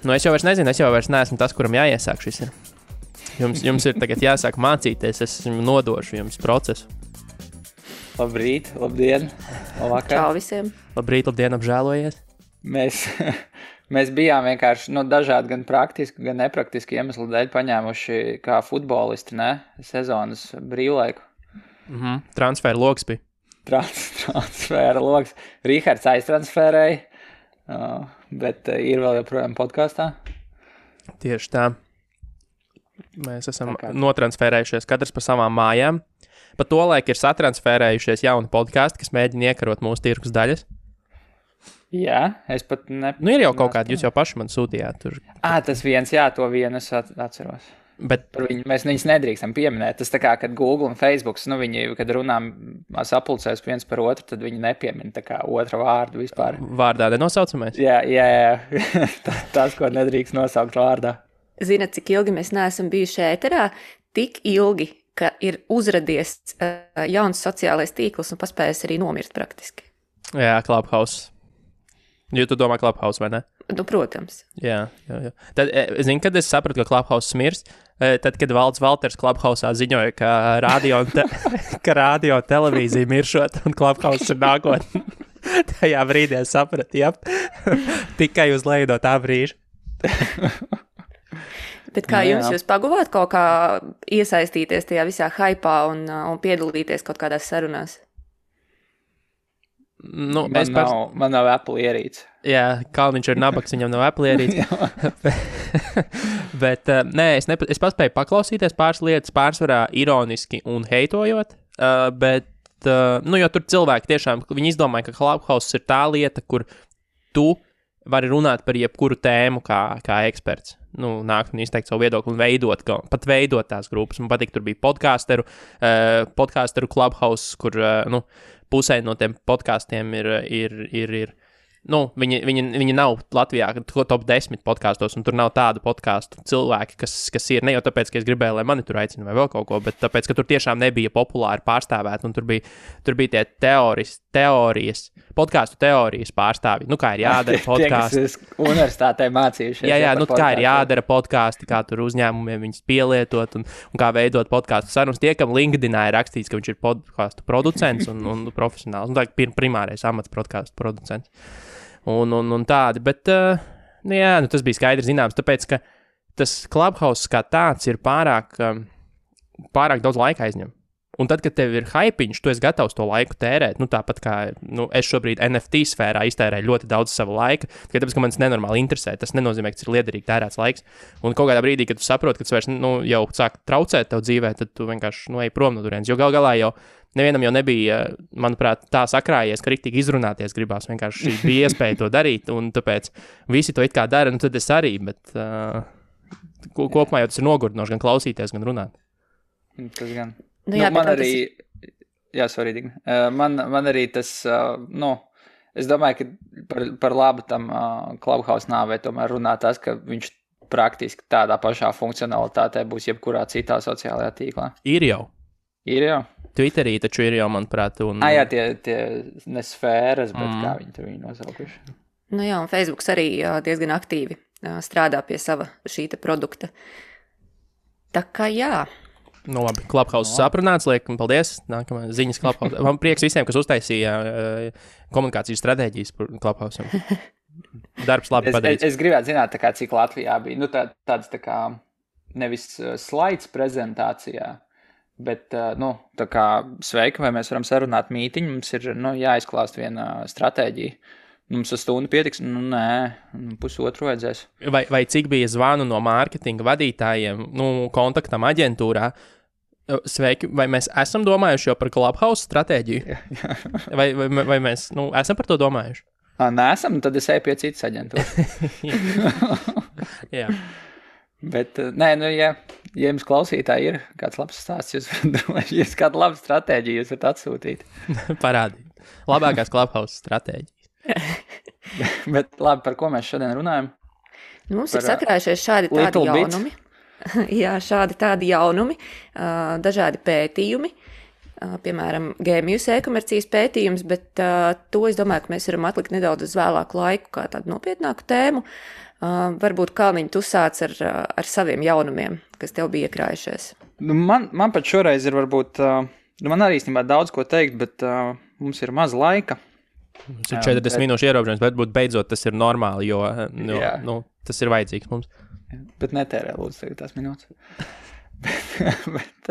Nu, es jau vairs nezinu, es jau vairs neesmu tas, kuram jāiesāk šis ir. Jums ir tagad jāsāk mācīties, es nodošu jums procesu. Labrīt, labdien, labvakar. Čau visiem. Labrīt, labdien, apžēlojies. Mēs bijām vienkārši dažādi gan praktiski, gan nepraktiski iemeslu dēļ paņēmuši kā futbolisti, sezonas brīvlaiku. Transfēra loks bija. Transfēra loks. Rihards aiztransfērēja, bet ir vēl joprojām podkastā. Tieši tā. Mēs esam notransfērējušies katrs pa savām mājām. Pa to laiku ir satransfērējušies jauni podkasti, kas mēģina iekarot mūsu tirgus daļas. Jā, es pat ir jau kaut kādi, jūs jau paši man sūtījāt tur. Tas viens, jā, to vienu es atceros. Bet mēs viņus nedrīkstam pieminēt. Tas tā kā, kad Google un Facebook, viņi, kad runām sapulcēs viens par otru, tad viņi nepiemina tā kā otra vārdu vispār. Vārdā nenosaucamies? Jā. Tas, ko nedrīkst nosaukt vārdā. Zinat, cik ilgi mēs neesam bijuši ēterā? Tik ilgi, ka ir uzradies jauns sociālais tīkls un paspējis arī nomirt praktiski. Jā, Clubhouse. Jo tu domā Clubhouse, vai ne? Nu, protams. Jā. Tad, kad es sapratu, ka Clubhouse mirs, tad, kad Valds Valters Clubhouse'ā ziņoja, ka radio televīzija miršot un Clubhouse ir nākotne, tajā brīdī es sapratu, tikai uz leju no tā brīža. Bet kā jūs paguvāt kaut kā iesaistīties tajā visā haipā un piedalīties kaut kādās sarunās? Nu, man nav Apple ierīce. Jā, Kalniņš ir nabaks, viņam nav Apple ierīce. Bet es paspēju paklausīties pāris lietas, pārsvarā ironiski un heitojot, bet, jo tur cilvēki tiešām, viņi izdomāja, ka Clubhouse ir tā lieta, kur tu vari runāt par jebkuru tēmu kā eksperts. Nākt un izteikt savu viedokli un pat veidot tās grupas. Man patīk, tur bija podcasteru Clubhouse, kur, pusē no tiem podkastiem ir viņi nav Latvijā top 10 podkastos, un tur nav tādu podkastu cilvēki, kas ir ne jau tāpēc, ka es gribēju, lai mani tur aicina vai vēl kaut ko, bet tāpēc, ka tur tiešām nebija populāri pārstāvēt, un tur bija tie podkastu teorijas pārstāvji. Kā ir jādara podkāsti. Tie, kas universitātē mācījušies. Jā, kā ir jādara podkāsti, kā tur uzņēmumiem viņus pielietot, un kā veidot podkāstu sarunas. Tie, kam LinkedInā ir rakstīts, ka viņš ir podkāstu producents un profesionāls. Tā ir primārais amats podkāstu producents. Un tādi, bet, tas bija skaidri zināms, tāpēc, ka tas Clubhouse kā tāds ir pārāk daudz laika aizņem. Un tad, kad tev ir hypiņš, tu esi gatavs to laiku tērēt, tāpat kā, es šobrīd NFT sfērā iztērēju ļoti daudz sava laika, tāpēc, ka man tas nenormāli interesē, tas nenozīmē, ka tas ir liederīgi tērēts laiks. Un kaut kādā brīdī, kad tu saproti, ka tas vairs, jau sāk traucēt tev dzīvē, tad tu vienkārši, ej prom no turienes, jo gal galā jau nevienam jau nebija, manuprāt, tā sakrājies, ka riktīgi izrunāties gribās, vienkārši bija iespēja to darīt, un tāpēc visi to it kā dara, tad es arī, bet kopumā jau tas ir nogurdinoši gan klausīties, gan runāt. Tas gan. Man arī, man arī tas, es domāju, ka par labu tam Clubhouse nāvei tomēr runā tas, ka viņš praktiski tādā pašā funkcionalitātē būs jebkurā citā sociālajā tīklā. Ir jau. Twitterī taču ir jau, manuprāt, jā, tie ne sfēras, bet kā viņi tur nosaukuši. Un Facebooks arī diezgan aktīvi strādā pie sava šīta produkta. Tā kā jā. Labi, Clubhouse saprunāts, liekam, paldies. Nākamā ziņas Clubhouse. Man prieks visiem, kas uztaisīja komunikācijas stratēģijas par Clubhouse. Darbs labi padarīts. Es gribētu zināt, cik Latvijā bija. Tāds tā kā nevis slaids prezentācijā, bet, tā kā sveiki, vai mēs varam sarunāt mītiņu, mums ir, jāizklāst viena stratēģija. Mums uz stundu pietiks, pusotru vajadzēs. Vai cik bija zvanu no mārketinga vadītājiem, kontaktam aģentūrā? Sveiki, vai mēs esam domājuši jau par Clubhouse stratēģiju? Vai mēs esam par to domājuši? Nesam, tad es eju pie citas aģentūras. Jā. Bet, ja jums klausītāji ir kāds labs stāsts, jūs kādu labu stratēģiju jūs varat atsūtīt. Parādīt. Labākās Clubhouse stratēģijas. Bet labi, par ko mēs šodien runājam? Mums ir sakrājušies šādi tādi jaunumi. Jā, šādi tādi jaunumi, dažādi pētījumi, piemēram, GMUS e-komercijas pētījums, bet to es domāju, ka mēs varam atlikt nedaudz uz vēlāku laiku kā tādu nopietnāku tēmu. Varbūt, Kalniņ, tu sāc ar saviem jaunumiem, kas tev bija iekrājušies. Man pat šoreiz ir varbūt, man arī īstenībā daudz ko teikt, bet mums ir maz laika. Mums ir 40 minūšu ierobežojums, bet beidzot tas ir normāli, jo tas ir vajadzīgs mums. Bet netērē, lūdzu, tagad tās minūtes. bet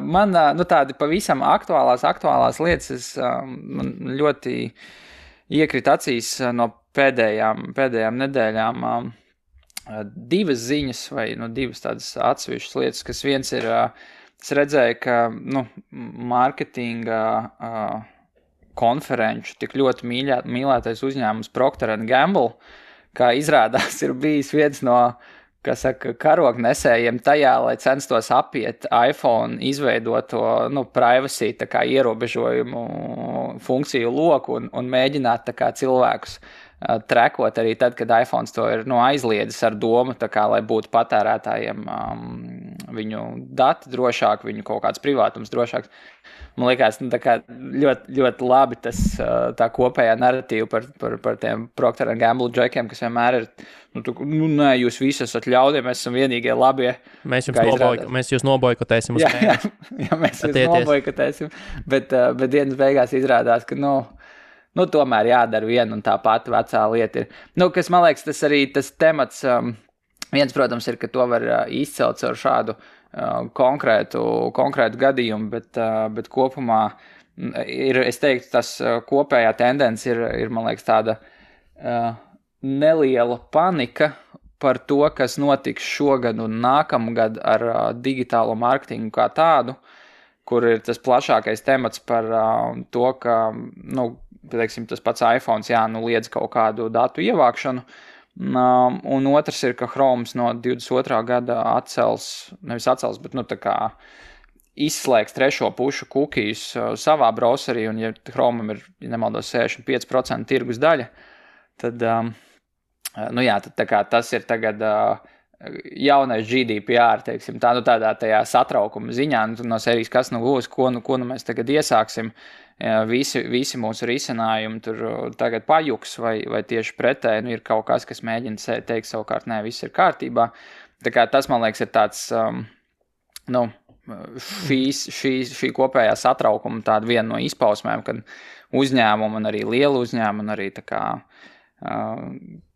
man tādi pavisam aktuālās lietas, man ļoti iekrita acīs no pēdējām nedēļām divas ziņas vai divas tādas atsevišķas lietas, kas viens ir, es redzēju, ka mārketinga konferenču tik ļoti mīlētais uzņēmums Procter & Gamble, kā izrādās ir bijis viens no, karognesējiem tajā, lai censtos apiet iPhone izveidoto, privacy tā kā ierobežojumu funkciju loku un mēģināt tā kā cilvēkus trekot arī tad, kad iPhones to ir aizliedzis ar domu, tā kā, lai būtu patērētājiem viņu dati drošāk, viņu kaut kāds privātums drošāks. Man liekas, tā kā ļoti, ļoti labi tas tā kopējā narratīva par tiem Procter & Gamble džekiem, kas vienmēr ir, nē, jūs visi esat ļaudie, mēs esam vienīgie labie. Mēs jūs nobojkotēsim uz mēnesi. Jā, mēs jūs nobojkotēsim, bet dienas beigās izrādās, ka, tomēr jādara viena un tā pati vecā lieta ir. Kas man liekas, tas arī tas temats, viens, protams, ir, ka to var izcelt ar šādu konkrētu gadījumu, bet kopumā ir, es teiktu, tas kopējā tendence ir, man liekas, tāda neliela panika par to, kas notiks šogad un nākamgad ar digitālo mārketingu kā tādu, kur ir tas plašākais temats par to, ka, teiksim, tas pats iPhones, liedz kaut kādu datu ievākšanu, un otrs ir, ka Chrome no 22. gada bet, tā kā izslēgs trešo pušu cookies savā browserī, un ja Chromeam ir, ja nemaldos, 65% tirgus daļa, tad, tad tā kā tas ir tagad jaunais GDPR, teiksim, tādā tajā satraukuma ziņā, no sērijas, kas būs, ko mēs tagad iesāksim, visi mūsu risinājumi tur tagad pajuks vai tieši pretēji, ir kaut kas mēģina teikt savukārt, nē, viss ir kārtībā. Tā kā tas, man liekas, ir tāds, šī kopējā satraukuma tāda viena no izpausmēm, kad uzņēmumi un arī liela uzņēmumi un arī tā kā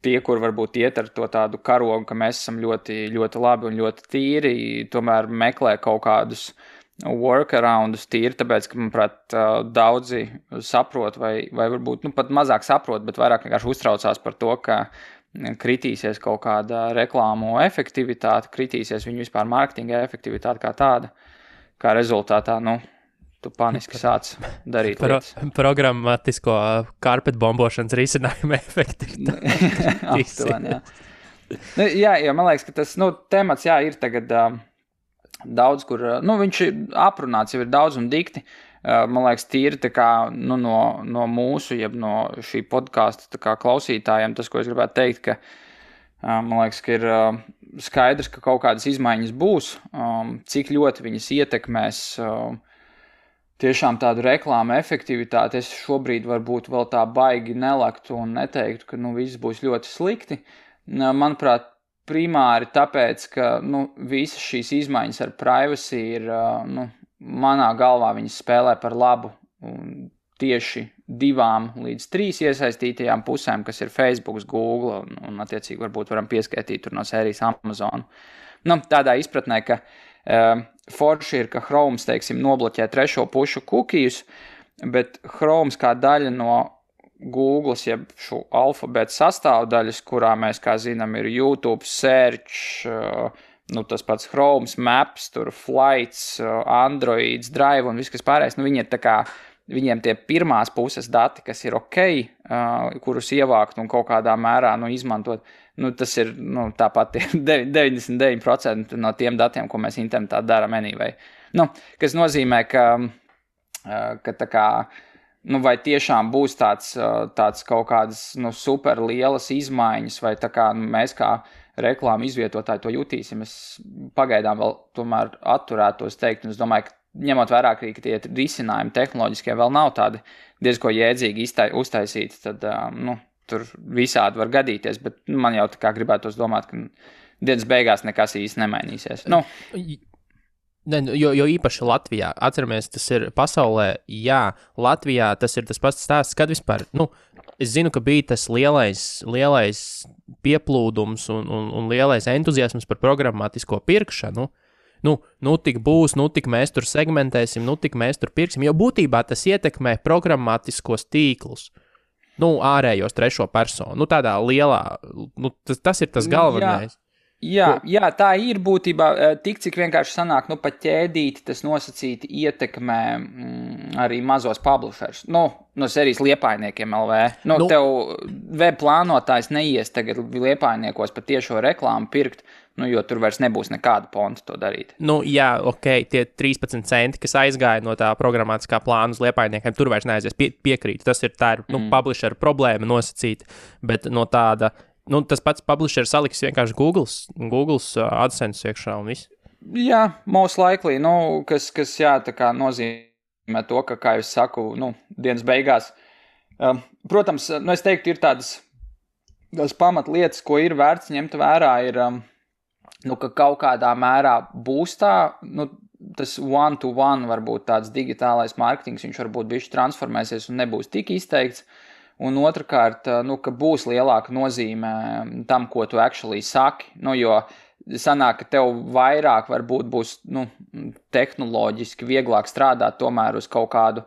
tie, kur varbūt iet ar to tādu karogu, ka mēs esam ļoti, ļoti labi un ļoti tīri, tomēr meklē kaut kādus workaroundus tīri, tāpēc, ka, manuprāt, daudzi saprot vai varbūt, pat mazāk saprot, bet vairāk vienkārši uztraucās par to, ka kritīsies kaut kāda reklāmu efektivitāte, kritīsies viņu vispār mārketinga efektivitāte kā tāda, kā rezultātā, tu paniski sāc darīt lietas. Programmatisko karpetbombošanas risinājumu efektivitāti. Aptuveni, jā. Jā, man liekas, ka tas, temats, ir tagad daudz, kur, viņš ir aprunāts, jau ir daudz un dikti. Man liekas, tīri tā kā, no mūsu, jeb no šī podkāsta tā kā klausītājiem, tas, ko es gribētu teikt, ka, man liekas, ka ir skaidrs, ka kaut kādas izmaiņas būs, cik ļoti viņas ietekmēs tiešām tādu reklāmu efektivitāti. Es šobrīd varbūt vēl tā baigi nelaktu un neteiktu, ka, viss būs ļoti slikti. Manuprāt, primāri tāpēc, ka, visas šīs izmaiņas ar privacy ir, manā galvā viņas spēlē par labu tieši 2 līdz 3 iesaistītajām pusēm, kas ir Facebook, Google un attiecīgi varbūt varam pieskaitīt tur no sērijas Amazon. Tādā izpratnē, ka forši ir, ka Chrome, teiksim, nobloķē trešo pušu cookies, bet Chrome kā daļa no Google, jeb šo alfabēta sastāvdaļas, kurā mēs, kā zinām, ir YouTube, Search, tas pats Chrome, Maps, tur Flights, Androids, Drive un viss, kas pārējais, viņi ir tā kā, viņiem tie pirmās puses dati, kas ir ok, kurus ievākt un kaut kādā mērā, izmantot, tas ir, tāpat 99% no tiem datiem, ko mēs internetā darām anyway. Kas nozīmē, ka tā kā, vai tiešām būs tāds kaut kādas, super lielas izmaiņas, vai tā kā mēs kā reklāmu izvietotāji to jutīsim, es pagaidām vēl tomēr atturētos teikt, un es domāju, ka ņemot vērā, ka tie risinājumi tehnoloģiskie vēl nav tādi diezko jēdzīgi uztaisīti, tad, tur visādi var gadīties, bet man jau tā kā gribētos domāt, ka dienas beigās nekas īsti nemainīsies. Jo īpaši Latvijā, atceramies, tas ir pasaulē, jā, Latvijā tas ir tas pats stāsts, kad vispār, es zinu, ka bija tas lielais pieplūdums un lielais entuziasms par programmatisko pirkšanu. Tik būs, tik mēs tur segmentēsim, tik mēs tur pirksim, jo būtībā tas ietekmē programmatiskos tīklus, ārējos trešo personu, tādā lielā, tas ir tas galvenais. Jā, tā ir būtībā tik, cik vienkārši sanāk, pat ķēdīti tas nosacīti ietekmē arī mazos publishers. No serijas Liepājniekiem LV. Tev web plānotājs neies tagad Liepājniekos pat tiešo reklāmu pirkt, jo tur vairs nebūs nekāda ponta to darīt. Jā, tie 13 centi, kas aizgāja no tā programmatiskā plāna uz Liepājniekiem, tur vairs neaizies piekrīt. Tā ir publisher problēma nosacīta, bet no tāda... tas pats publisher saliks vienkārši Google's AdSense iekšā un viss. Jā, most likely, kas tā kā nozīmē to, ka, kā es saku, dienas beigās. Protams, es teiktu, ir tādas pamatlietas, ko ir vērts ņemt vērā, ir, ka kaut kādā mērā būs tā, tas one-to-one varbūt tāds digitālais mārketings, viņš varbūt bišķi transformēsies un nebūs tik izteikts. Un otrkārt, ka būs lielāka nozīme tam, ko tu actually saki, jo sanāk, ka tev vairāk varbūt būs, tehnoloģiski vieglāk strādāt tomēr uz kaut kādu,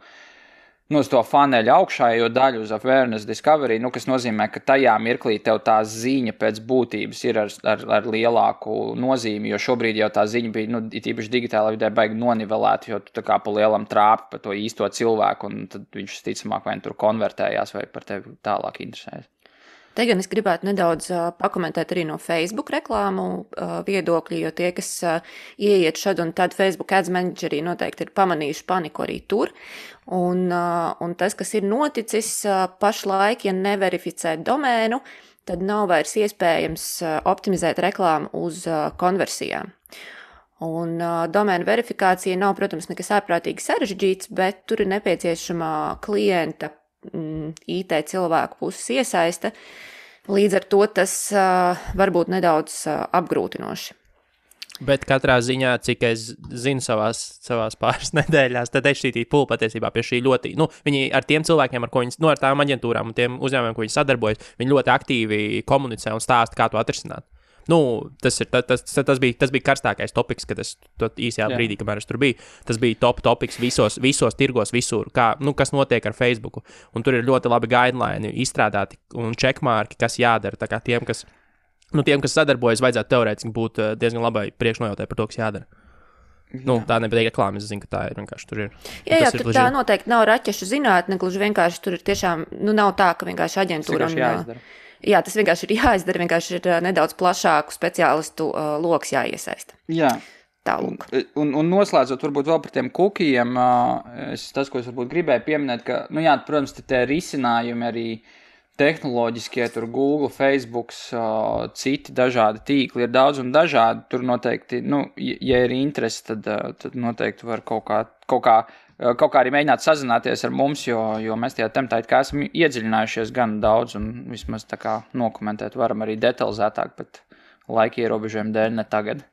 uz to funnel augšējo daļu, uz awareness discovery, kas nozīmē, ka tajā mirklī tev tā ziņa pēc būtības ir ar lielāku nozīmi, jo šobrīd jau tā ziņa bija, īpaši digitālā vidē baigi nonivelēta, jo tu tā kā pa lielam trāpi pa to īsto cilvēku, un tad viņš ticamāk vai tur konvertējās vai par tevi tālāk interesējas. Te gan es gribētu nedaudz pakomentēt arī no Facebook reklāmu viedokļi, jo tie, kas ieiet šad un tad Facebook Ads Managerī noteikti ir pamanījuši paniku arī tur. Un tas, kas ir noticis pašlaik, ja neverificē domēnu, tad nav vairs iespējams optimizēt reklāmu uz konversijām. Un domēna verifikācija nav, protams, nekas ārprātīgi sarežģīts, bet tur ir nepieciešama klienta IT cilvēku puses iesaiste. Līdz ar to tas var būt nedaudz apgrūtinoši. Bet katrā ziņā, cik es zinu savās pāris nedēļās, tad HTTP Pool patiesībā pie šī ļoti, viņi ar tiem cilvēkiem, ar ko viņi, ar tām aģentūrām un tiem uzņēmumiem, ko viņi sadarbojas, viņi ļoti aktīvi komunicē un stāsta, kā to atrisināt. Tas bija karstākais topiks, kad es īsajā brīdī, kamēr es tur biju. Tas bija top topiks visos tirgos, visur, kas notiek ar Facebooku. Un tur ir ļoti labi guideline izstrādāti un checkmarki, kas jādara. Tā kā tiem, kas sadarbojas, vajadzētu teorētiski būt diezgan labai priekšnojautai par to, kas jādara. Tā nepatīk reklāma, es zinu, ka tā ir vienkārši tur ir. Jā, tur tā noteikti nav raķešu zinātne, gluži vienkārši tur ir tiešām, nav tā, ka vienkārši aģentūra Jā, tas vienkārši ir jāizdara, vienkārši ir nedaudz plašāku speciālistu loks jāiesaista. Jā. Tālūk. Un noslēdzot varbūt vēl par tiem kukijiem, tas, ko es varbūt gribēju pieminēt, ka, protams, tie risinājumi arī tehnoloģiskie, tur Google, Facebook, citi dažādi tīkli ir daudz un dažādi. Tur noteikti, ja ir interesi, tad noteikti var kaut kā arī mēģināt sazināties ar mums, jo mēs tajā tematā esam iedziļinājušies gan daudz un vismaz tā kā nokomentēt varam arī detalizētāk, bet laika ierobežojumu dēļ ne tagad.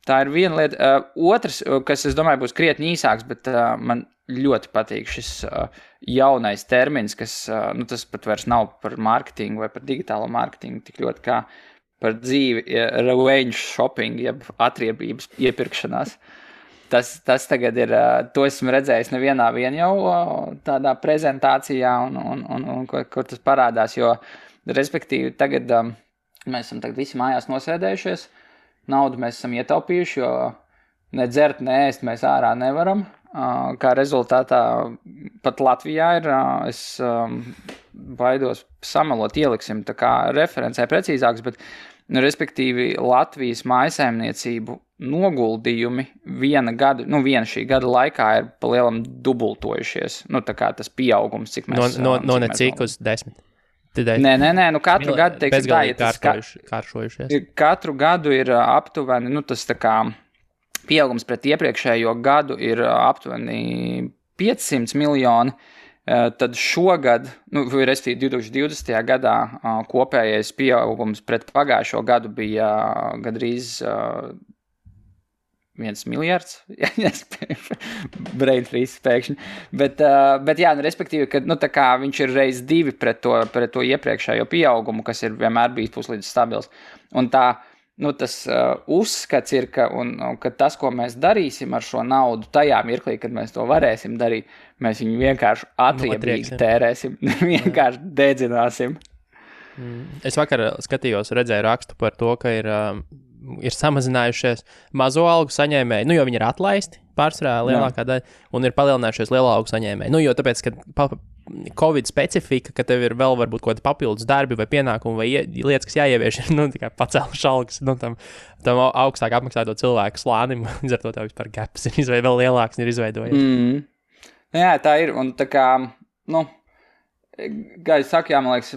Tā ir viena lieta. Otrs, kas es domāju būs krietni īsāks, bet man ļoti patīk šis jaunais termins, kas, tas pat vairs nav par mārketingu vai par digitālo mārketingu, tik ļoti kā par dzīvi, revenge shopping, jeb atriebības iepirkšanās. Tas tagad ir, to esmu redzējis nevienā jau tādā prezentācijā, un kur tas parādās, jo, respektīvi, tagad mēs esam visi mājās nosēdējušies, naudu mēs esam ietaupījuši, jo ne dzert, ne ēst mēs ārā nevaram, kā rezultātā pat Latvijā ir, es baidos samalot, ieliksim tā kā referencē precīzāks, bet, respektīvi, Latvijas mājsaimniecību noguldījumi viena šī gada laikā ir palielam dubultojušies. Tā kā tas pieaugums, cik mēs... No necik uz 10. Nē, katru gadu, teiksim, kāršojušies. Katru gadu ir aptuveni, tas tā kā pieaugums pret iepriekšējo gadu ir aptuveni 500 miljoni. Tad šogad, respektīvi 2020. gadā, kopējais pieaugums pret pagājušo gadu bija gandrīz 1 miljards. Brain freeze pēkšņi. Bet jā, respektīvi, ka tā kā viņš ir reiz 2 pret to iepriekšējo pieaugumu, kas ir vienmēr bijis puslīdz stabils. Un tā, tas uzskats ir, ka tas, ko mēs darīsim ar šo naudu tajā mirklī, kad mēs to varēsim darīt, mēs viņu vienkārši atriebīgi tērēsim, vienkārši dedzināsim. Es vakar redzēju rakstu par to, ka ir samazinājušies mazo algu saņēmēji, jo viņi ir atlaisti pārsvarā lielākā daļa, un ir palielinājušies lielā algu saņēmēji. Jo tāpēc, ka Covid specifika, ka tev ir vēl varbūt kaut kādi papildus darbi vai pienākumi vai lietas, kas jāievieš, ir tikai pacēluši algas tam augstāk apmaksāto cilvēku slānim, līdz ar to tev vispār gaps ir vēl lielāks ir izveidojies. Jā, tā ir, un tā kā, kā es saku, man liekas,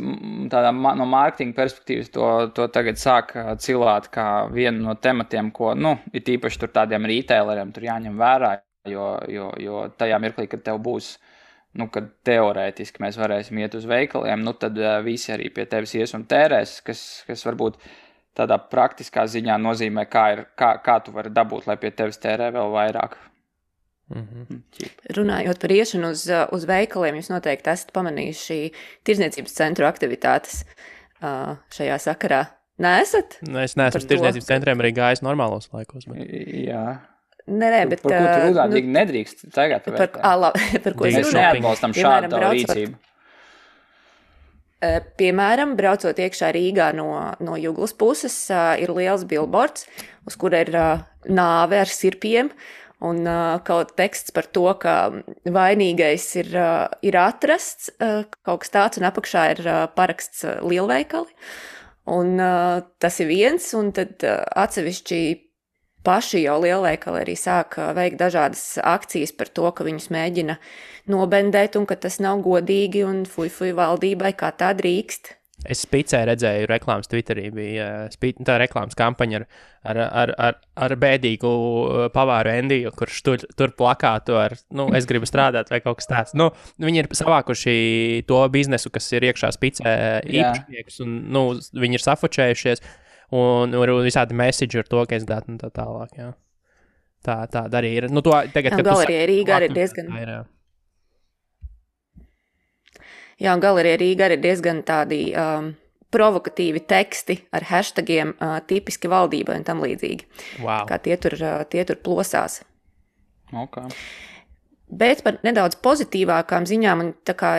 tādā no mārketinga perspektīvas to tagad sāk cilāt kā vienu no tematiem, ko, ir tīpaši tur tādiem retaileriem tur jāņem vērā, jo tajā mirklī, kad tev būs, kad teorētiski mēs varēsim iet uz veikaliem, tad visi arī pie tevis ies un tērēs, kas varbūt tādā praktiskā ziņā nozīmē, kā tu vari dabūt, lai pie tevis tērē vēl vairāk. Runājot par iešanu uz veikaliem, jūs noteikti esat pamanījuši tirdzniecības centru aktivitātes šajā sakarā. Neesat? Es neesmu uz tirdzniecības centriem arī gājis normālos laikos. Bet... Jā. Nē, bet... Par ko tu runāt, nedrīkst tagad par ko es runāju? Mēs neatbalstam šādu rīcību. Piemēram, braucot iekšā Rīgā no Juglas puses, ir liels billboards, uz kura ir nāve ar sirpiem, un kaut teksts par to, ka vainīgais ir atrasts, kaut kas tāds, un apakšā ir paraksts lielveikali. Un tas ir viens, un tad atsevišķi paši jau lielveikali arī sāk veikt dažādas akcijas par to, ka viņus mēģina nobendēt un ka tas nav godīgi un fuj valdībai, kā tā drīkst. Es Spicē redzēju reklāmas Twitterī, bija tā reklāmas kampaņa ar bēdīgu pavāru Endiju, kurš tur plakātu ar, es gribu strādāt vai kaut kas tāds. Viņi ir savākuši to biznesu, kas ir iekšā Spicē īpašnieks, un viņi ir safočējušies, un visādi message ar to, ka es datu un tā tālāk, jā. Tā arī ir. To tagad, kad Galerijā Rīgā arī diezgan... Jā, un Galerijā Rīgā ir diezgan tādi provokatīvi teksti ar hashtagiem tipiski valdībai un tam līdzīgi. Wow. Kā tie tur plosās. Okay. Bet par nedaudz pozitīvākām ziņām, un tā kā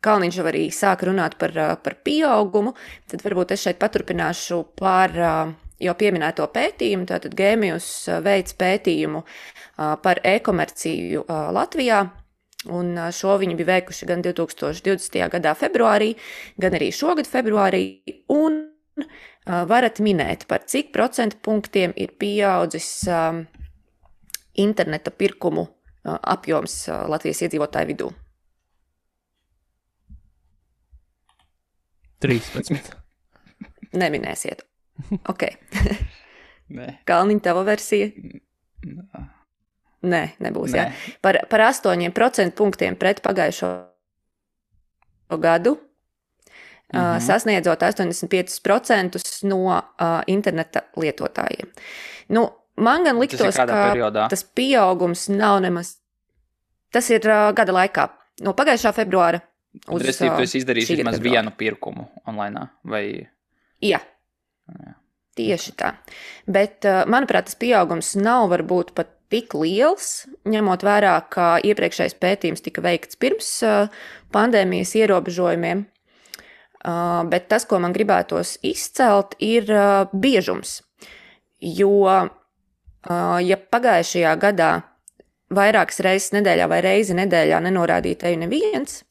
Kalniņš jau arī sāk runāt par pieaugumu, tad varbūt es šeit paturpināšu par jau pieminēto pētījumu. Tātad Gēmijus veic pētījumu par e-komerciju Latvijā. Un šo viņi bija veikuši gan 2020. gadā februārī, gan arī šogad februārī, un varat minēt, par cik procentu punktiem ir pieaudzis interneta pirkumu apjoms Latvijas iedzīvotāju vidū. 13. Neminēsiet. Ok. Nē. Kalniņa, tava versija? Nē, nebūs, jā. Par 8% punktiem pret pagājušo gadu, sasniedzot 85% no interneta lietotājiem. Man gan liktos, ka tas pieaugums nav nemaz... Tas ir gada laikā. No pagājušā februāra uz tu esi izdarījis vismaz vienu pirkumu online, vai... Jā. Tieši tā. Bet, manuprāt, tas pieaugums nav varbūt pat tik liels, ņemot vērā, ka iepriekšējais pētījums tika veikts pirms pandēmijas ierobežojumiem. Bet tas, ko man gribētos izcelt, ir biežums. Jo, ja pagājušajā gadā vairākas reizes nedēļā vai reizi nedēļā nenorādīja tevi neviens,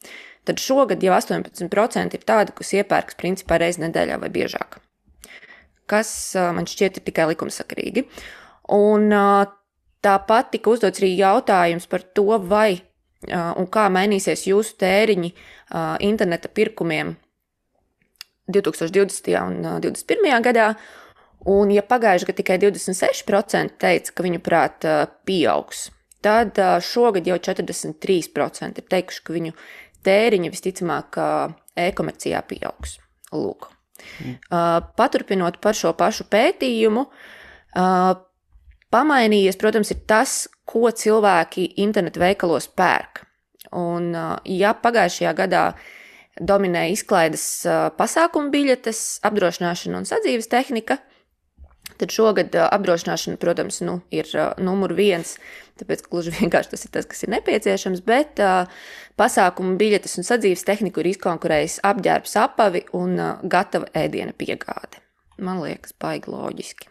tad šogad jau 18% ir tādi, kas iepērks principā reizi nedēļā vai biežāk. Kas man šķiet ir tikai likumsakarīgi. Un tāpat tika uzdots arī jautājums par to, vai un kā mainīsies jūsu tēriņi interneta pirkumiem 2020. un 2021. gadā. Un, ja pagājuši gadu tikai 26% teica, ka viņu prāt pieaugs, tad šogad jau 43% ir teikuši, ka viņu tēriņi visticamāk e-komercijā pieaugs. Lūk. Paturpinot par šo pašu pētījumu, pamainījies, protams, ir tas, ko cilvēki internetu veikalos pērk. Un, ja pagājušajā gadā dominēja izklaides pasākumu biļetes, apdrošināšana un sadzīves tehnika, tad šogad apdrošināšana, protams, ir numur 1, tāpēc gluži vienkārši tas ir tas, kas ir nepieciešams, bet pasākumu biļetes un sadzīves tehniku ir izkonkurējis apģērbs, apavi un gatava ēdiena piegāde. Man liekas, baigi loģiski.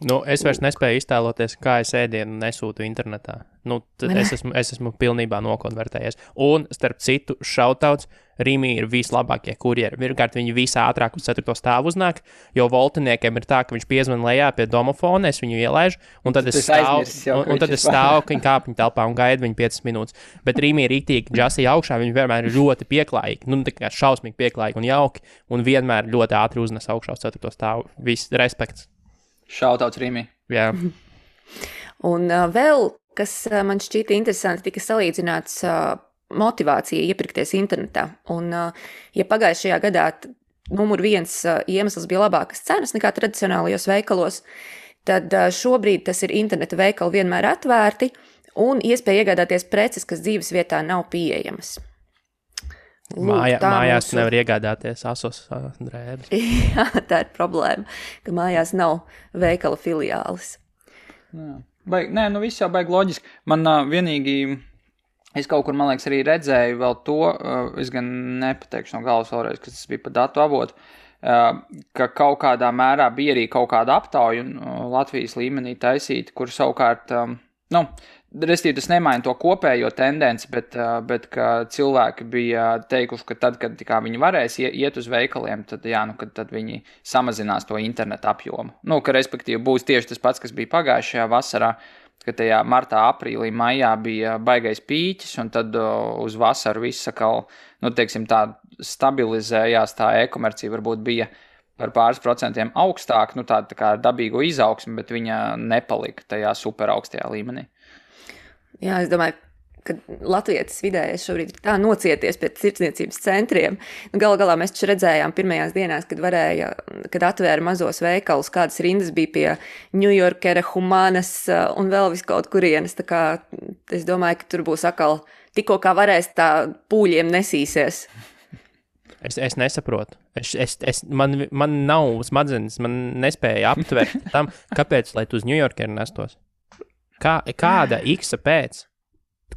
Es vairs nespēju iztēloties, kā es ēdienu nesūtu internetā. Es esmu pilnībā nokonvertējies. Un, starp citu, šautauts, Rīmī ir vislabākie kurjeri. Pirmkārt, viņi visātrāk uz 4. stāvu uznāk, jo voltiniekiem ir tā, ka viņš piezvan lejā pie domofona, es viņu ielaižu, un tad es stāvu viņa kāpņu telpā un gaidu viņu 5 minūtes. Bet Rīmī ir rītīgi džasī augšā, viņi vienmēr ir ļoti pieklājīgi, tā kā šausmīgi pieklājīgi un jauki, un vienmēr ļoti ātri uznes augšā uz 4. stāvu. Viss respekts. Šautauts Rīmī. Jā. Un vēl, kas man šķīta interesanti, tika salīdzināts motivācija iepirkties internetā. Un, ja pagājušajā gadā numur 1 iemesls bija labākas cenas nekā tradicionālajos veikalos, tad šobrīd tas ir interneta veikali vienmēr atvērti un iespēja iegādāties preces, kas dzīves vietā nav pieejamas. Mājās nevar iegādāties asos drēbes. Jā, tā ir problēma, ka mājās nav veikala filiālis. Viss jau baigi loģiski. Man vienīgi, es kaut kur, man liekas, arī redzēju vēl to, es gan nepateikšu no galvas vēlreiz, kas tas bija pa datu avotu, ka kaut kādā mērā bija arī kaut kāda aptauja Latvijas līmenī taisīta, kur savukārt, restīvi tas nemaina to kopējo tendenci, bet ka cilvēki bija teikuši, ka tad, kad viņi varēs iet uz veikaliem, tad, tad viņi samazinās to internetu apjomu. Ka respektīvi būs tieši tas pats, kas bija pagājušajā vasarā, ka tajā martā, aprīlī, maijā bija baigais pīķis, un tad uz vasaru viss sakal, tā stabilizējās, tā e-komercija varbūt bija par pāris procentiem augstāk, tā kā dabīgo izaugsmi, bet viņa nepalika tajā super augstajā līmenī. Jā, es domāju, ka latvietis vidējais šobrīd ir tā nocieties pēc tirdzniecības centriem. Galu galā mēs taču redzējām pirmajās dienās, kad atvēra mazos veikalus, kādas rindas bija pie New Yorkera, Humanas un vēl vis kaut kurienes. Tā kā es domāju, ka tur būs atkal tikko kā varēs tā pūļiem nesīsies. Es nesaprotu. Man nav smadzenes, man nespēja aptvert tam, kāpēc, lai tu uz New Yorkeru nestos. Kāda X pēc?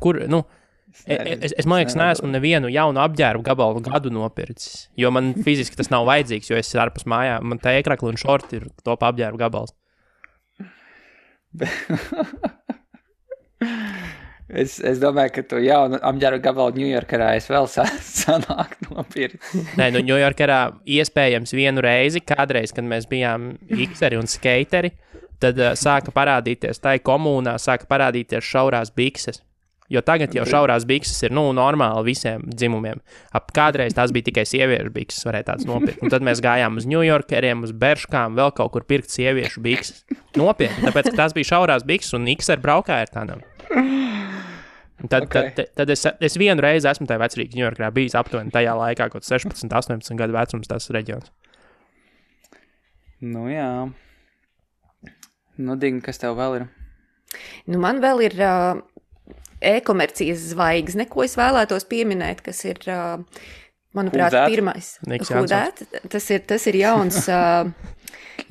Kur, es man liekas, neesmu nevienu jaunu apģērbu gabalu gadu nopircis, jo man fiziski tas nav vajadzīgs, jo es ārpus mājām, man tā ēkrakli un šorti ir top apģērbu gabals. Es domāju, ka tu jaunu apģērbu gabalu Ņujorkerā es vēl sanāk nopircis. Nē, Ņujorkerā iespējams vienu reizi, kādreiz, kad mēs bijām ikseri un skateri, tad sāka parādīties, tai komunā sāka parādīties šaurās bikses. Jo tagad jau šaurās bikses ir, normāli visiem dzimumiem. Kādreiz tās bija tikai sieviešu bikses, varēja tāds nopirkt. Un tad mēs gājām uz New Yorkeriem, uz Berškām, vēl kaut kur pirkt sieviešu bikses. Nopietni, tāpēc, ka tās bija šaurās bikses un X ar braukāja ar tādām. Tad es vienu reizi esmu tajā vecrīgas New Yorkerā bijis aptuveni tajā laikā, kaut 16, 18 gadu vecums tas reģions. Jā. Dīgi, kas tev vēl ir? Man vēl ir e-komercijas zvaigzne, ko es vēlētos pieminēt, kas ir, manuprāt, pirmais. Tas ir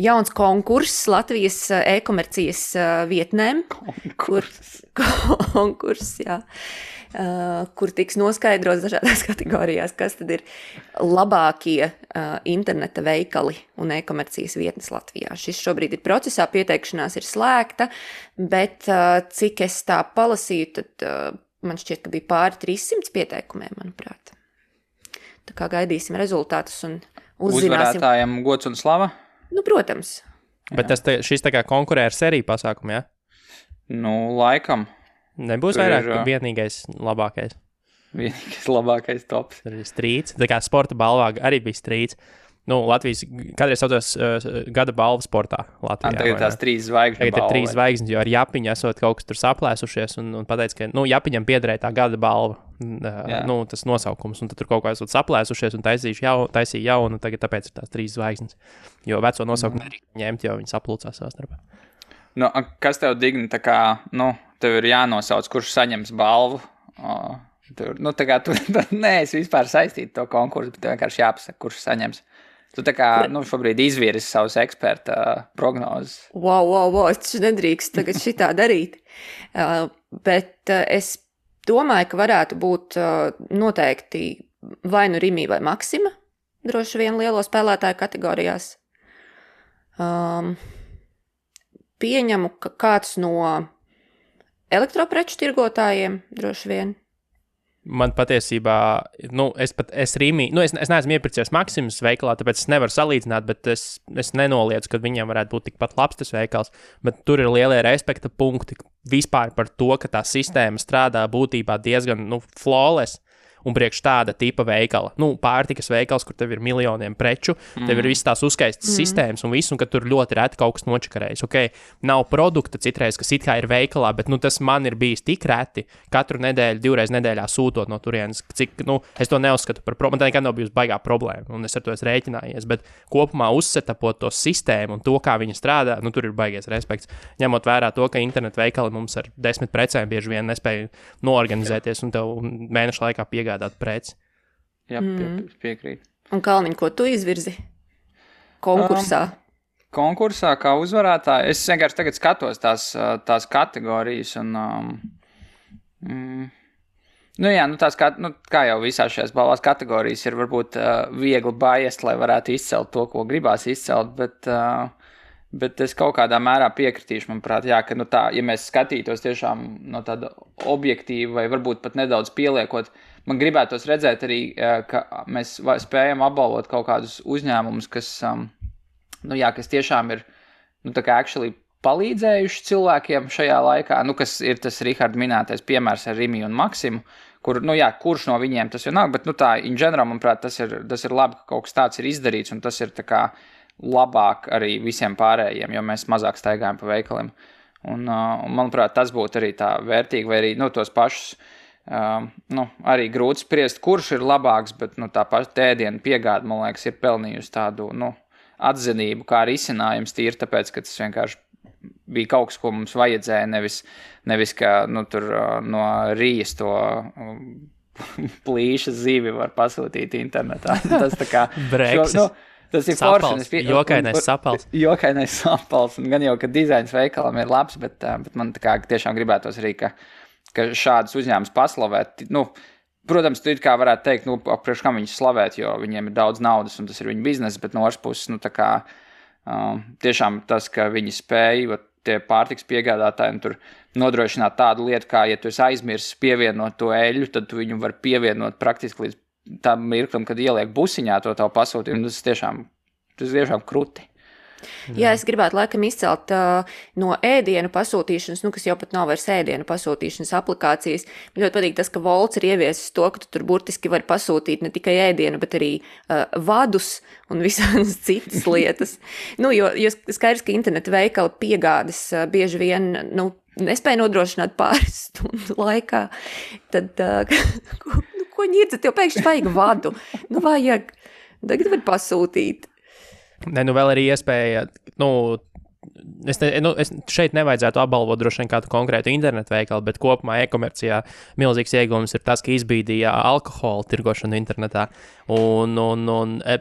jauns konkurss Latvijas e-komercijas vietnēm. Konkurss, jā. Kur tiks noskaidrots dažādās kategorijās, kas tad ir labākie interneta veikali un e-komercijas vietnes Latvijā. Šis šobrīd ir procesā, pieteikšanās ir slēgta, bet cik es tā palasīju, tad man šķiet, ka bija pāri 300 pieteikumiem, manuprāt. Tā kā gaidīsim rezultātus un uzzināsim. Uzvarētājiem gods un slava? Protams. Bet šis tā kā konkurē ar seriju pasākumu, jā? Laikam. Nebūs vairāk vienīgais labākais. Vienīgais labākais tops. Tur ir strīds. Tā kā sporta balvā arī bija strīds. Latvijas kādreiz saucās gada balvu sportā Latvijā. Tagad tās 3 zvaigžņu Tagad balva. ir 3 zvaigznes, jo ar Japiņu esot kaut kas tur saplēsušies un pateica, ka, Japiņam piederēja tā gada balva, tas nosaukums, un tad tur kaut kā esot saplēsušies un taisīja jaunu, tagad tāpēc ir tās 3 zvaigznes, jo veco nosaukumu nedrīkst ņemt, jo viņi saplūcās savā starpā. Kas tev digni, tā kā, tev ir jānosauc, kurš saņems balvu? Tā kā tu neesi vispār saistīti to konkursu, bet tev vienkārši jāpasaka, kurš saņems. Tu tā kā, šobrīd izvirzi savus eksperta prognozes. Wow, es taču nedrīkst tagad šitā darīt. Bet es domāju, ka varētu būt noteikti vai nu Rimi vai Maksima, droši vien lielo spēlētāju kategorijās. Pieņemu, ka kāds no elektropreču tirgotājiem droši vien. Man patiesībā, es Rimi, es neesmu iepircies Maksimas veikalā, tāpēc es nevaru salīdzināt, bet es nenoliedzu, ka viņam varētu būt tikpat labs tas veikals, bet tur ir lielie respekta punkti vispār par to, ka tā sistēma strādā būtībā diezgan, flawless. Un priekš tāda tipa veikala, pārtikas veikals, kur tev ir miljoniem preču, tev ir visas tās uzskaistas sistēmas un viss, un ka tur ļoti reti kaut kas nočakarējas. Nav produkta citreiz, kas it kā ir veikalā, bet tas man ir bijis tik reti, katru nedēļu, 2 reizes nedēļā sūtot no turienes, cik, es to neuzskatu par problēmu, man tā nekad nav bijusi baigā problēma, un es ar to esmu rēķinājies, bet kopumā uzsetapot to sistēmu un to, kā viņa strādā, tur ir baigies respekts, ņemot vērā to, ka internetu veikali mums ar 10 precēm bieži vien nespēja noorganizēties un tev mēnešu laikā piegādāt preci. Jā, piekrīt. Un Kalniņ, ko tu izvirzi konkursā? Konkursā kā uzvarētāji, es vienkārši tagad skatos tās kategorijas un kā jau visās šajās balvās kategorijas ir varbūt viegli biased, lai varētu izcelt to, ko gribās izcelt, bet es kaut kādā mērā piekritīšu, manuprāt, ka ja mēs skatītos tiešām no tāda objektīva vai varbūt pat nedaudz pieliekot, man gribētos redzēt arī, ka mēs spējam apbalvot kaut kādus uzņēmumus, kas tiešām ir, actually palīdzējuši cilvēkiem šajā laikā, kas ir tas Riharda minētais piemērs ar Rimi un Maksimu, kurš no viņiem tas vienalga, bet, in general, manuprāt, tas ir labi, ka kaut kas tāds ir izdarīts, un tas ir tā kā labāk arī visiem pārējiem, jo mēs mazāk staigājam pa veikaliem. Un manuprāt, tas būtu arī tā vērtīgi, vai arī, tos pašus, arī grūti spriest, kurš ir labāks, bet, tā paša ēdienu piegāde, man liekas, ir pelnījusi tādu, atzinību, kā risinājums tīri, tāpēc, ka tas vienkārši bija kaut kas, ko mums vajadzēja, nevis ka, tur no Rijas to plīša zivi var pasūtīt internetā. Tas tā kā... Tas ir sapals, jokainais sapals. Jokainais sapals, un gan jau, ka dizains veikalam ir labs, bet man tā kā tiešām gribētos arī, ka šādas uzņēmumus paslavēt. Protams, tu it kā varētu teikt, priekš kam viņus slavēt, jo viņiem ir daudz naudas, un tas ir viņu bizness, bet no otras puses, tā kā tiešām tas, ka viņi spēja, tie pārtiks piegādātāji, tur nodrošināt tādu lietu, kā, ja tu esi aizmirsis pievienot to eļļu, tad tu viņu var pievienot praktiski līdz tam mirklim, kad ieliek busiņā to tavu pasūtījumu, tas tiešām kruti. Jā, es gribētu laikam izcelt no ēdienu pasūtīšanas, kas jau pat nav vairs ēdienu pasūtīšanas aplikācijas. Man ļoti patīk tas, ka Volts ir ieviesis to, ka tu tur burtiski vari pasūtīt ne tikai ēdienu, bet arī vadus un visādas citas lietas. Jo skaidrs, ka interneta veikala piegādes bieži vien, nespēja nodrošināt pāris stundu laikā, tad... Ko ņirdzat, tev pēkšņi vajag vadu? Vajag. Tagad var pasūtīt. Vēl arī iespēja, es šeit nevajadzētu apbalvot droši vien kādu konkrētu internetu veikalu, bet kopumā e-komercijā milzīgs ieguvums ir tas, ka izbīdīja alkohola tirgošanu internetā. Un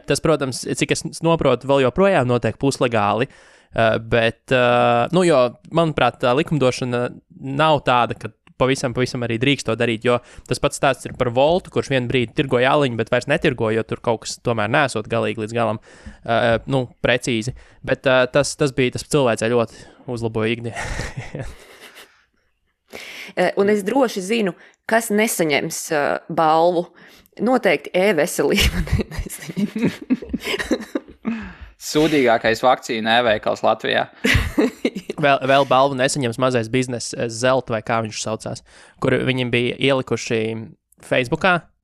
tas, protams, cik es noprotu, vēl joprojām notiek puslegāli, bet, jo, manuprāt, tā likumdošana nav tāda, ka pavisam arī drīkst to darīt, jo tas pats stāsts ir par Voltu, kurš vienu brīdi tirgoja aliņu, bet vairs netirgoja, jo tur kaut kas tomēr nesot galīgi līdz galam, precīzi. Bet tas cilvēcei ļoti uzlaboja ikdienu. Un es droši zinu, kas nesaņems balvu. Noteikti e-veselība nesaņems. Sūdīgākais vakcīna e-veikals Latvijā. Vēl balvu nesaņems mazais bizness Zelta, vai kā viņš saucās, kur viņiem bija ielikuši Facebookā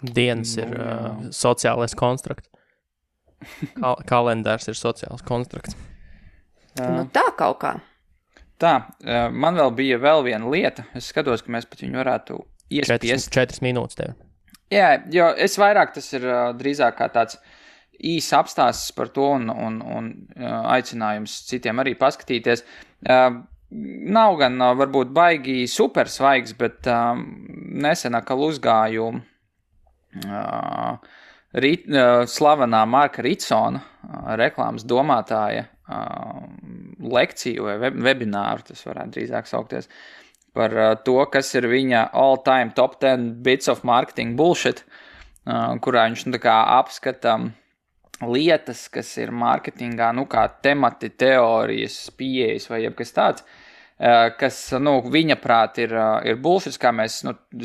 Dienas ir sociālais konstrukts. Kalendārs ir sociāls konstrukts. Nu tā kaut kā. Tā, man bija vēl viena lieta. Es skatos, ka mēs pat viņu varētu iespiest. 4 minūtes tev. Jā, jo es vairāk tas ir drīzāk kā tāds īs apstāsts par to un aicinājums citiem arī paskatīties. Nav gan varbūt baigi super svaigs, bet nesen atkal uzgāju slavenā Marka Ritsona reklāmas domātāja lekciju vai webināru, tas varētu drīzāk saukties, par to, kas ir viņa all-time top 10 bits of marketing bullshit, kurā viņš tā kā apskata lietas, kas ir marketingā, kā temati, teorijas, pieejas vai jebkas tāds, kas, viņa prāt ir bullshit, kā mēs,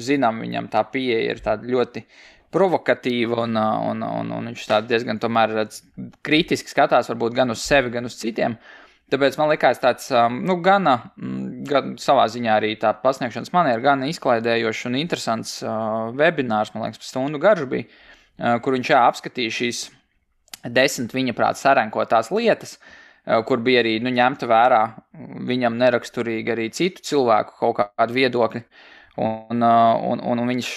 zinām, viņam tā pieeja ir tāda ļoti provokatīva un viņš tā diezgan tomēr kritiski skatās varbūt gan uz sevi, gan uz citiem. Tāpēc man likās tāds, gan savā ziņā arī tā pasniegšanas maniera, gan izklaidējošs un interesants webinārs, man liekas, stundu garš bija, kur viņš apskatīja šīs 10 viņa prāt sarenkotās lietas, kur bija arī ņemta vērā viņam neraksturīgi arī citu cilvēku kaut kādu viedokļi. Un viņš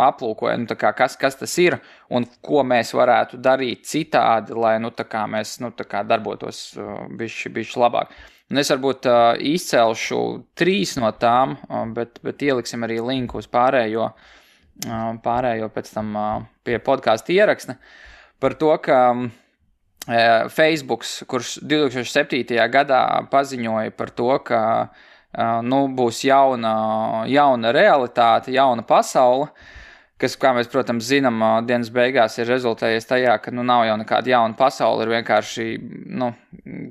aplūkoja, kas tas ir un ko mēs varētu darīt citādi, lai mēs darbotos bišķi labāk. Un es varbūt izcelšu 3 no tām, bet ieliksim arī linku uz pārējo pēc tam pie podcastu ieraksta par to, ka Facebooks, kurš 2007. Gadā paziņoja par to, ka būs jauna realitāte, jauna pasaule, kas, kā mēs, protams, zinām, dienas beigās ir rezultējies tajā, ka nav jau nekāda jauna pasaule, ir vienkārši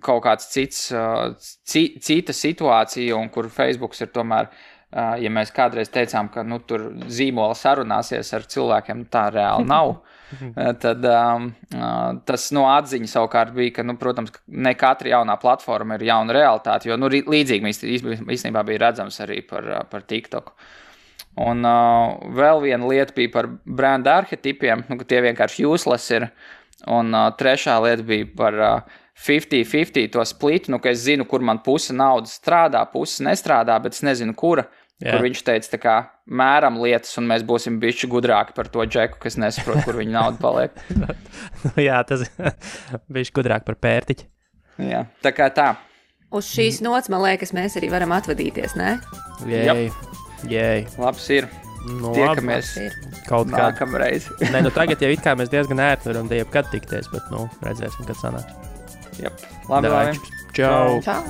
kaut kāds cita situācija, un kur Facebooks ir tomēr, ja mēs kādreiz teicām, ka tur zīmola sarunāsies ar cilvēkiem, tā reāli nav. Tad tas atziņa savukārt bija, ka, protams, ne katra jaunā platforma ir jauna realitāte, jo līdzīgi īstenībā bija redzams arī par TikToku. Un vēl viena lieta bija par branda arhetipiem, ka tie vienkārši useless ir, un trešā lieta bija par 50-50 to splitu, ka es zinu, kur man puse naudas strādā, puse nestrādā, bet es nezinu, kura. Jā. Kur viņš teica, mēram lietas, un mēs būsim bišķi gudrāki par to džeku, kas nesaprot, kur viņa nauda paliek. Jā, tas bišķi gudrāk par pērtiķi. Jā, tā kā tā. Uz šīs nots, man liekas, mēs arī varam atvadīties, ne? Jēj. Labs ir. Tiekamies kaut kādā nākamreiz. Nē, tagad jau it kā mēs diezgan ērti varam te jebkad tikties, bet, redzēsim, kad sanāks. Labi. Čau. Čau.